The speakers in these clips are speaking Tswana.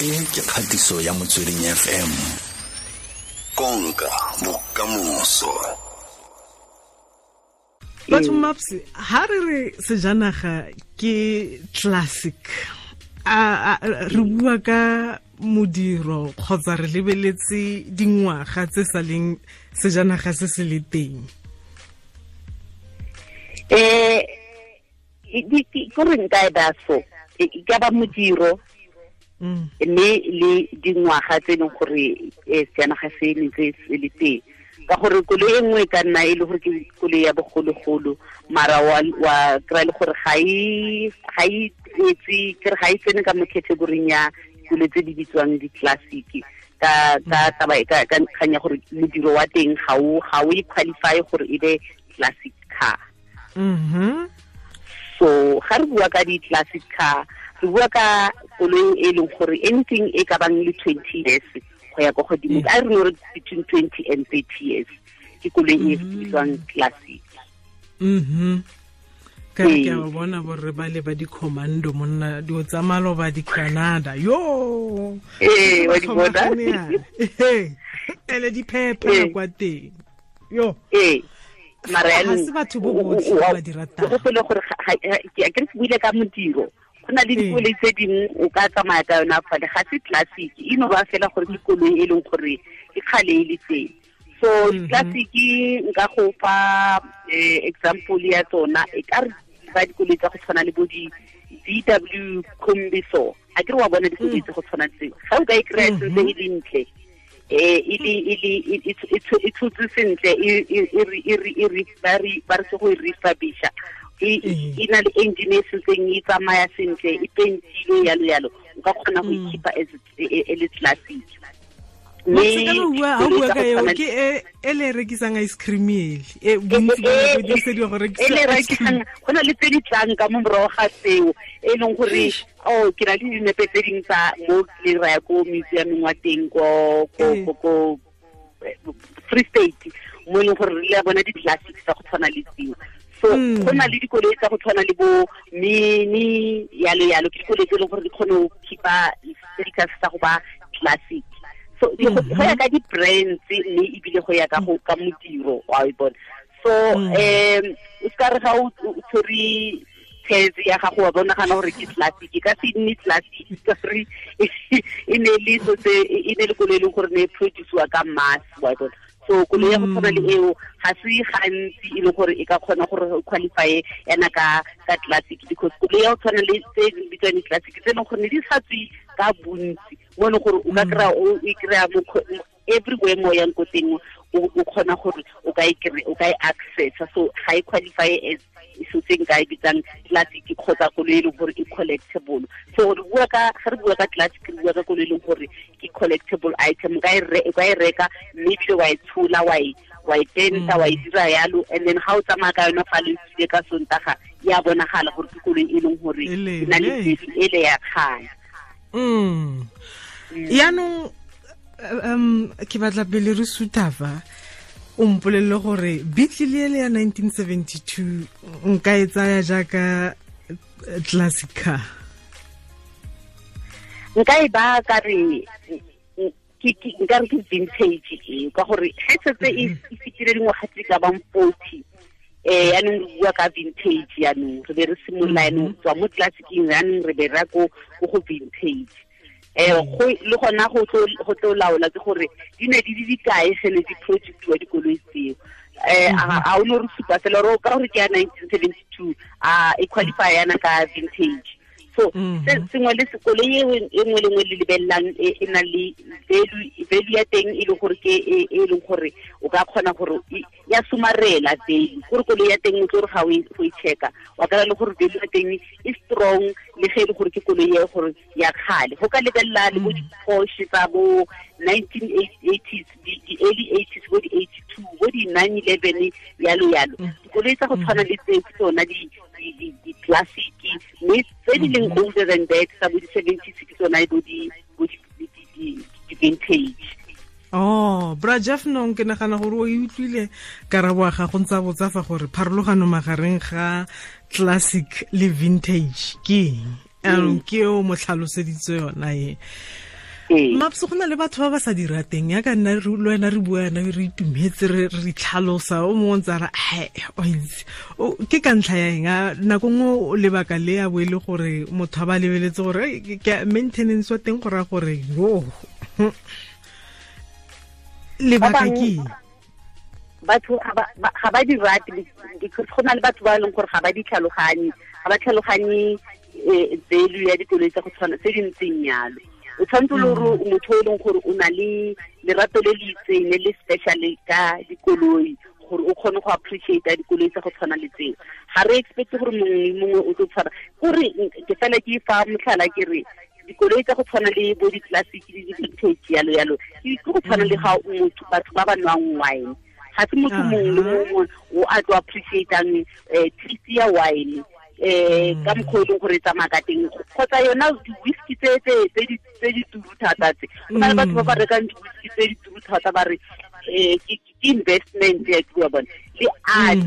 E ke kgatiso ya Motsweding FM. Konka bokamoso. Batho Maps, ha re re sejanaga ke classic, a re bua ka modiro kgotsa re lebeletse dingwaga tse sa leng sejanaga se se le teng? Ko re nka e ba so, e ka ba modiro mme le dingwaga tse e leng gore sejanaga se ne se le teng. Ka gore koloi e nngwe e ka nna e le gore ke koloi ya bogologolo, mara wa kry-a le gore ga e etse, ke re ga e tsene ka mo category-ing ya koloi tse di bitswang di-classic. Ka taba ka kgang ya gore modiro wa teng ga o e qualify gore e be classic car. So ga re bua ka di-classic car, re bua ka koloi e leng gore anything e ka bang le 20 years go ya ko godimo, a re no re between 20 and 30 years ke koloi e bitswang classic. Ka re ke a bona borre ba le ba di-commando monna, dio tsa maloba di-Canada. Yo! Wa di bona? Ele di phepha kwa teng. Yo! Mara ha se batho bo botlhe ba di ratang. Go gopole gore ke re buile ka modiro. Go na le dikoloi tse dingwe o ka tsamaya ka yona fale, ga se classic, e no ba fela gore ke koloi e leng gore ke kgale e le teng. So classic nka go fa example ya tsona, e ka re ba dikoloi tsa go tshwana le bo di VW Kombi so. A ke re wa bona dikoloi tse go tshwana tseo. Ga o ka e kry-a sentse e le ntle, e tshotse sentle, ba re se go e refurbisha. E na le engine e sentseng e tsamaya sentle, e pentile yalo yalo, o ka kgona go e keep-a as e le classic. Mme ha o bua ka eo, ke e le rekisang ice cream ele, e bontsi ba nako e dirisediwa go rekisa E le rekisang, go na le tse di tlang ka mo morago ga tseo, e leng gore, oh, ke na le dinepe tse dingwe tsa mo le raya ko museum-eng wa teng ko Free State, mo e leng gore re le bona di-classics tsa go tshwana le tseo. So go na le dikoloi tsa go tshwana le bo Mini yalo yalo, ke dikoloi tse e leng gore di kgone go keep-a status sa go ba classic. So go ya ka di-brands mme ebile go ya ka go ka modiro wa e bona. So o ska re ga o tshwere tshetse ya gago wa bona gana gore ke classic, e ka se nne classic ka gore e ne le so tse, e ne le koloi e leng gore ne e produce-wa ka mass wa bona. So koloi ya go tshwana le eo ga se gantsi e leng gore e ka kgona gore o qualify yana ka classic, because koloi ya go tshwana le tse di bitswang di-classic tse e leng gore ne di sa tswe ka bontsi, mo e leng gore o ka kry-a o e kry-a mo everywhere mo yang ko teng, o kgona gore o ka e kry-, o ka e access-a. So ga e qualify as so tse nka e bitsang classic kgotsa koloi e leng gore e collectible. So re bua ka, ga re bua ka classic, re bua ka koloi e leng gore ke collectible item, o ka e o ka e reka mme ebile wa e tshola, wa e penta, wa e dira yalo, and then ga o tsamaya ka yona fa le tsile ka Sontaga, ya bonagala gore ke koloi e leng gore e na le value e le ya kgale. Yaanong, ke batla pele re suthafa, o mpolelele gore Beetle ele ya 1972 nka e tsaya jaaka classic car? Nka e ba ka re, nka re ke vintage e, ka gore ge setse e fetile dingwaga tse ka bang 40, yaanong re bua ka vintage, yaanong re be re simolola yaanong tswa mo classicing, yaanong re be re ya ko go vintage. Go le gona go tlo laola ke gore di ne di le dikae ge ne di produce-iwa dikoloi tseo. A o no re supa fela gore ka gore ke ya 1972, a e qualify yana ka vintage. So se sengwe le koloi e nngwe le nngwe le lebelelang e na le value ya teng e leng gore ke e leng gore o ka kgona gore ya somarela value. Gore koloi ya teng o tlo re ga o e check-a, wa kry-a le gore value ya teng e strong, le ge e le gore ke koloi e gore ya kgale. Go ka lebelela le bo di-Porsche tsa bo 1980s, di-early 80s, bo di-82, bo di-911, yalo yalo. Dikoloi tsa go tshwana le tseo ke tsona di-classic, mme tse di leng older than that tsa bo di-70s ke tsona bo di-vintage. Oh, Bra Jeff nong ke nagana gore o e utlwile karabo ya gago ntse a botsa fa gore pharologano magareng ga classic le vintage ke eng? Ke o mo tlhaloseditse yona e. Maps go na le batho ba ba sa di rateng ya ka nna le wena re bua yana re itumetse re tlhalosa o mongwe ntse a re o itse ke ka ntlha ya eng a nako nngwe lebaka le ya bo e le gore motho a ba lebeletse gore ke maintenance wa teng go raya gore yo lebaka ke batho ga ba di rate because go na le batho ba e leng gore ga ba di tlhaloganye, ga ba tlhaloganye value ya dikoloi tsa go tshwana tse di ntseng yalo. O tshwanetse le gore motho o e leng gore o na le lerato le le itseng le le special ka dikoloi gore o kgone go appreciate dikoloi tsa go tshwana le tseo. Ga re expect gore mongwe le mongwe o tlo tshwara gore ke fela ke fa motlhala ke re dikoloi tsa go tshwana le bo di-classic le di-vintage yalo yalo ke go tshwana le ga motho batho ba ba nwang wine. Ga se motho mongwe le mongwe o a tlo appreciatang taste ya wine ka mokgwa o leng gore e tsamaya ka teng kgotsa yona di-whisky tse di turu thata tse. Go na le batho ba ba rekang di-whisky tse di turu thata ba re ke investment ya ke bua bone le art.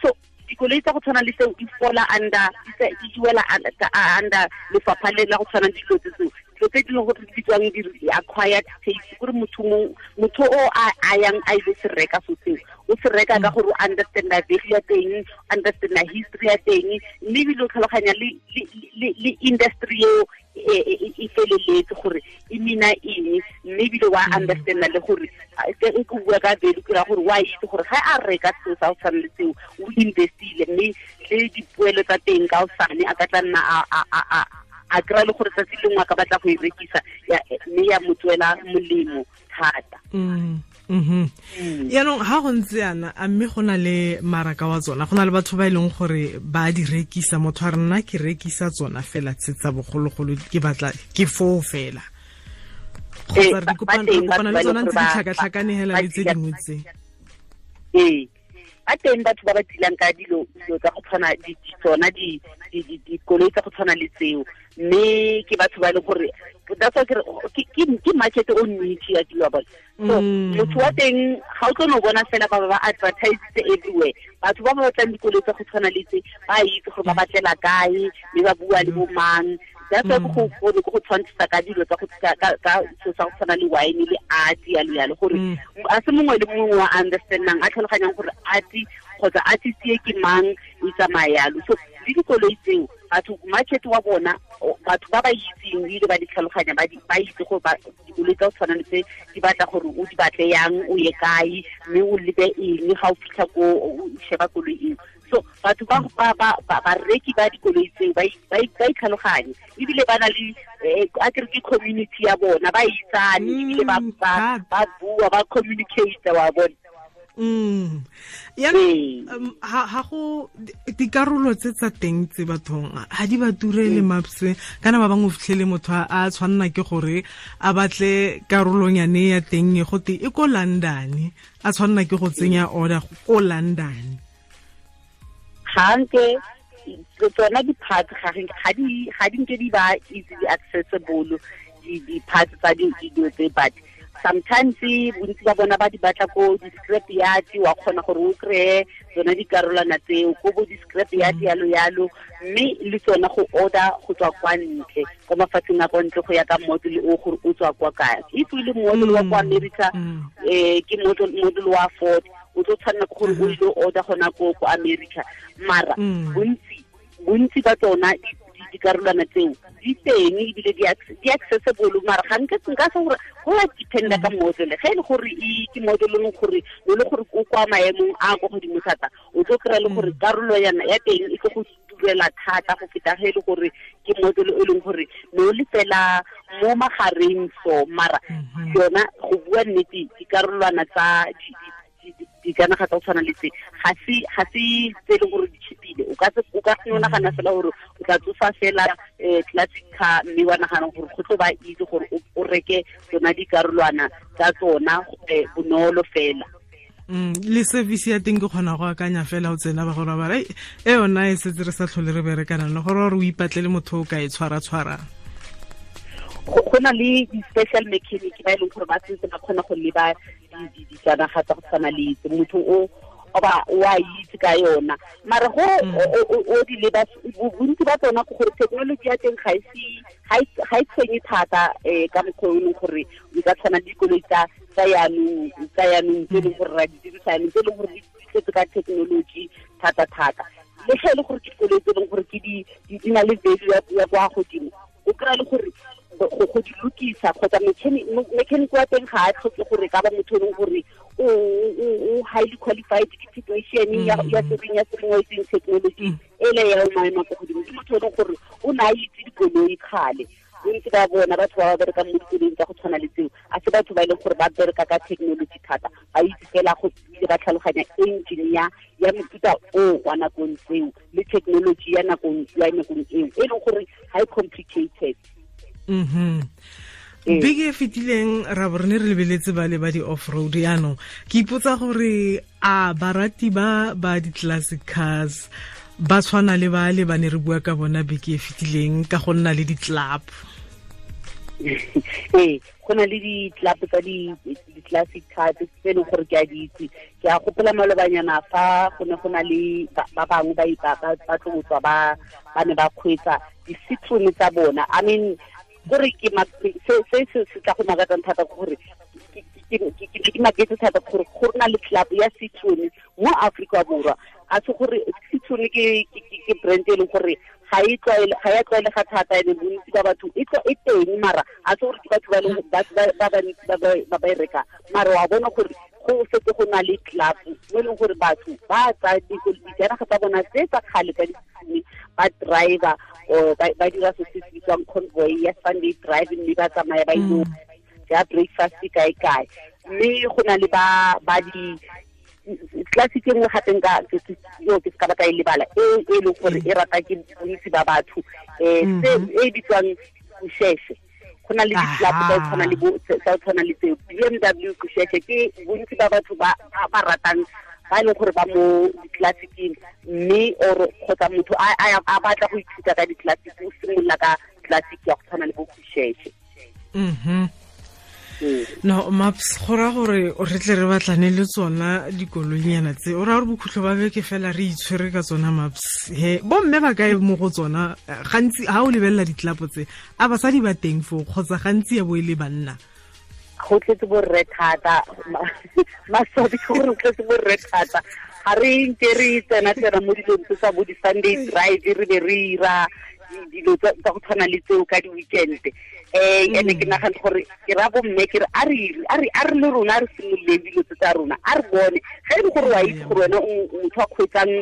So dikoloi tsa go tshwana le tseo di fola under di wela under lefapha le la go tshwana le dilo tse tseo, dilo tse di leng gore di bitswang di-acquired taste, gore motho o a yang a ile se reka so seo o se reka ka gore o understanda value ya teng, understanda history ya teng, mme ebile o tlhaloganya le industry eo e feleletse gore e mina eng, mme ebile wa understanda le gore ke bua ka value ke ra gore wa itse gore ga a reka seo sa go tshwana le seo o investile, mme le dipoelo tsa teng ka osane a ka tla nna a kry-a le gore tsatsi lengwe a ka batla go e rekisa mme ya mo tswela molemo thata. Yaanong ha go ntse yana a mme go na le maraka wa tsona, go na le batho ba e leng gore ba di rekisa, motho a re nna ke rekisa tsona fela tse tsa bogologolo ke batla ke foo fela, kgotsa re kopana le tsona ntse di tlhakatlhakane hela le tse dingwe tse. Ee, ba teng batho ba ba tilang ka dilo tsa go tshwana tsona dikoloi tsa go tshwana le tseo, mme ke batho ba e leng gore that's why ke market o niche ya dilo bona. So motho wa teng ga o tlo no bona fela ba ba advertise everywhere. Batho ba ba batlang dikoloi tsa go tshwana le tse ba itse gore ba batlela kae mme ba bua le bo mang. That's why go tshwantshisa ka dilo tsa go ka so sa go tshwana le wine le art yalo yalo gore a se mongwe le mongwe wa understandang a tlhaloganyang gore art kgotsa artist e ke mang e tsamaya yalo. So le dikoloi tseo batho market wa bona batho ba ba itseng ebile ba di tlhaloganya ba itse gore dikoloi tsa go tshwana le tse di batla gore o di batle yang o ye kae mme o lebe eng ga o fitlha ko o sheba koloi eo. So batho ba bareki ba dikoloi tseo ba itlhaloganye ebile ba na le a ke re ke community ya bona ba itsane ebile ba bua ba communicate wa bona. Yaanong ha go dikarolo tse tsa teng tse bathong ha di ba turele Maps, kana ba bangwe o fitlhele motho a tshwanna ke gore a batle karolonyane ya teng e gote e ko London, a tshwanna ke go tsenya order ko London. Ga nke tsona di-parts ga di nke di ba easily accessible di-parts tsa dilo tse, but sometimes bontsi ba bona ba di batla ko di-scrap yard, wa kgona gore o kry-e tsona dikarolwana tseo ko bo di-scrap yard yalo yalo, mme le tsona go order go tswa kwa ntle kwa mafatsheng a kwa ntle go ya ka model o gore o tswa kwa kae. If o le model wa kwa America ke model wa Ford, o tlo tshwanela ke gore o ile order gona ko America. Mara bontsi ba tsona dikarolwana tseo di teng ebile di accessible, mara ga nke nka se gore go ya dependa ka model. Ge e le gore ke model e leng gore o le gore o kwa maemong a kwa godimo thata, o tlo kry-a le gore karolo ya teng e tlo go turela thata go feta ge e le gore ke model e leng gore ne o le fela mo magareng. So mara yona go bua nnete dikarolwana tsa dijanaga tsa go tshwana le tse ga se tse e leng gore di cheapile. O ka se nagana fela gore o tla tsosa fela classic car mme wa nagana gore go tlo ba easy gore o reke tsona dikarolwana tsa tsona bonolo fela. Le service ya teng ke kgona go akanya fela o tsena ba gore ba re e yona e setse re sa tlhole re berekana le gore o ipatlele motho o ka e tshwara-tshwarang. Go na le di-special mechanic ba e leng gore ba sentse ba kgona go leba dijanaga tsa go tshwana le tse. Motho o oba wa itse ka yona mara go o di leba bontsi ba tsona ke gore technology ya teng ga e tshwenye thata ka mokgwa o leng gore o ka tshwana le dikoloi tsa yanong tse e leng gore ra di dirisa yanong tse e leng gore di tletse ka technology thata-thata. Le ge e le gore ke dikoloi tse e leng gore ke di na le value ya kwa godimo, o kry-a le gore go di lokisa kgotsa mechanic wa teng ga a tlhoke gore ka ba motho e leng gore o highly qualified ke technician ya sereng wa itseng technology e le ya maemo a kwa godimo. Ke motho e leng gore o ne a itse dikoloi kgale. Bontsi ba bona batho ba ba berekang mo dikoloing tsa go tshwana le tseo a se batho ba e leng gore ba bereka ka technology thata, ba itse fela go ba tlhaloganya engine ya mofuta o wa nakong tseo le technology ya nakong eo e leng gore ga e complicated. Beke e fetileng ra bo re ne re lebeletse ba le ba di-off-road yaanong ke ipotsa gore a barati ba ba di-classic cars ba tshwana le ba le ba ne re bua ka bona beke e fetileng ka go nna le di-club. Ee, go na le di-club tsa di-classic cars tse e leng gore ke a di itse. Ke a gopola malobanyana fa go ne go na le ba bangwe ba tlo tswa ba ne ba kgweetsa di-Citroen tsa bona. I mean gore ke se se tla go makatsang thata ke gore ke maketse thata gore go na le club ya Citroen mo Afrika Borwa. A se gore Citroen ke brand e leng gore ga e tlwaelega thata, ene bontsi ba batho e teng, mara a se gore ke batho ba leng ba bantsi ba ba e reka. Mara wa bona gore go setse go na le club mo e leng gore batho ba tsaya dijanaga tsa bona tse tsa kgale ka di-Citroen ba driver or ba dira se se bitswang convoy ya Sunday drive, mme ba tsamaya ba ile ja breakfast kae kae. Mme go na le ba di classic e nngwe gape nka yo ke se ka ba ka e lebala e leng gore e rata ke bontsi ba batho se e bitswang Kusheshe. Go na le di-club tsa tshwana le tseo BMW Kusheshe, ke bontsi ba batho ba ratang ba e leng gore ba mo di-classicing, mme or kgotsa motho a batla go ithuta ka di-classic o simolola ka classic ya go tshwana le bo Kusheshe. No Maps, go raya gore re tle re batlane le tsona dikoloinyana tse, o raya gore bokhutlo ba beke fela re itshwere ka tsona Maps. He bomme ba kae mo go tsona? Gantsi ha o lebelela ditlapo tse, a basadi ba teng foo kgotsa gantsi ya bo e le banna? Go tletse borre thata, maswabi ke gore go tletse borre thata. Ga re nke re tsena mo dilong tse tsa bo di-Sunday drive, re be re ira dilo tsa go tshwana le tseo ka di-weekend. Ene ke nagana gore ke ra bomme ke re a re le rona re simololeng dilo tse tsa rona, a re bone ge e le gore wa itse gore wena motho a kgweetsang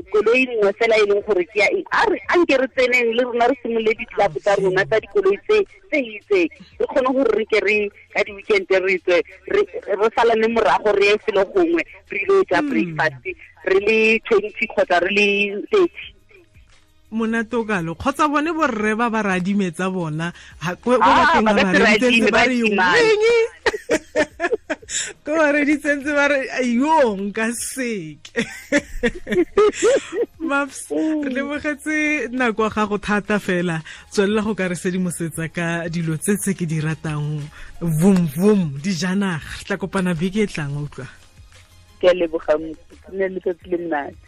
koloi nngwe fela e leng gore ke ya eng, a nke re tseneng le rona re simolole di-club tsa rona tsa dikoloi tse itseng, re kgone gore re ke re ka di-weekend re tswe re salane morago re ye felo gongwe re ile ja breakfast re le 20 kgotsa re le 30. Monate o kalo kgotsa bone borre ba ba radimetsa bona ko bateng ba reditsentse ba re eng ko ba reditsentse ba re yo nka seke. Maps, re lebogetse nako ya gago thata fela, tswelela go ka re sedimosetsa ka dilo tse tse ke di ratang vum vum dijanaga. Tla kopana beke e tlang, utlwa. Ke a leboga, ne letsatsi le monate.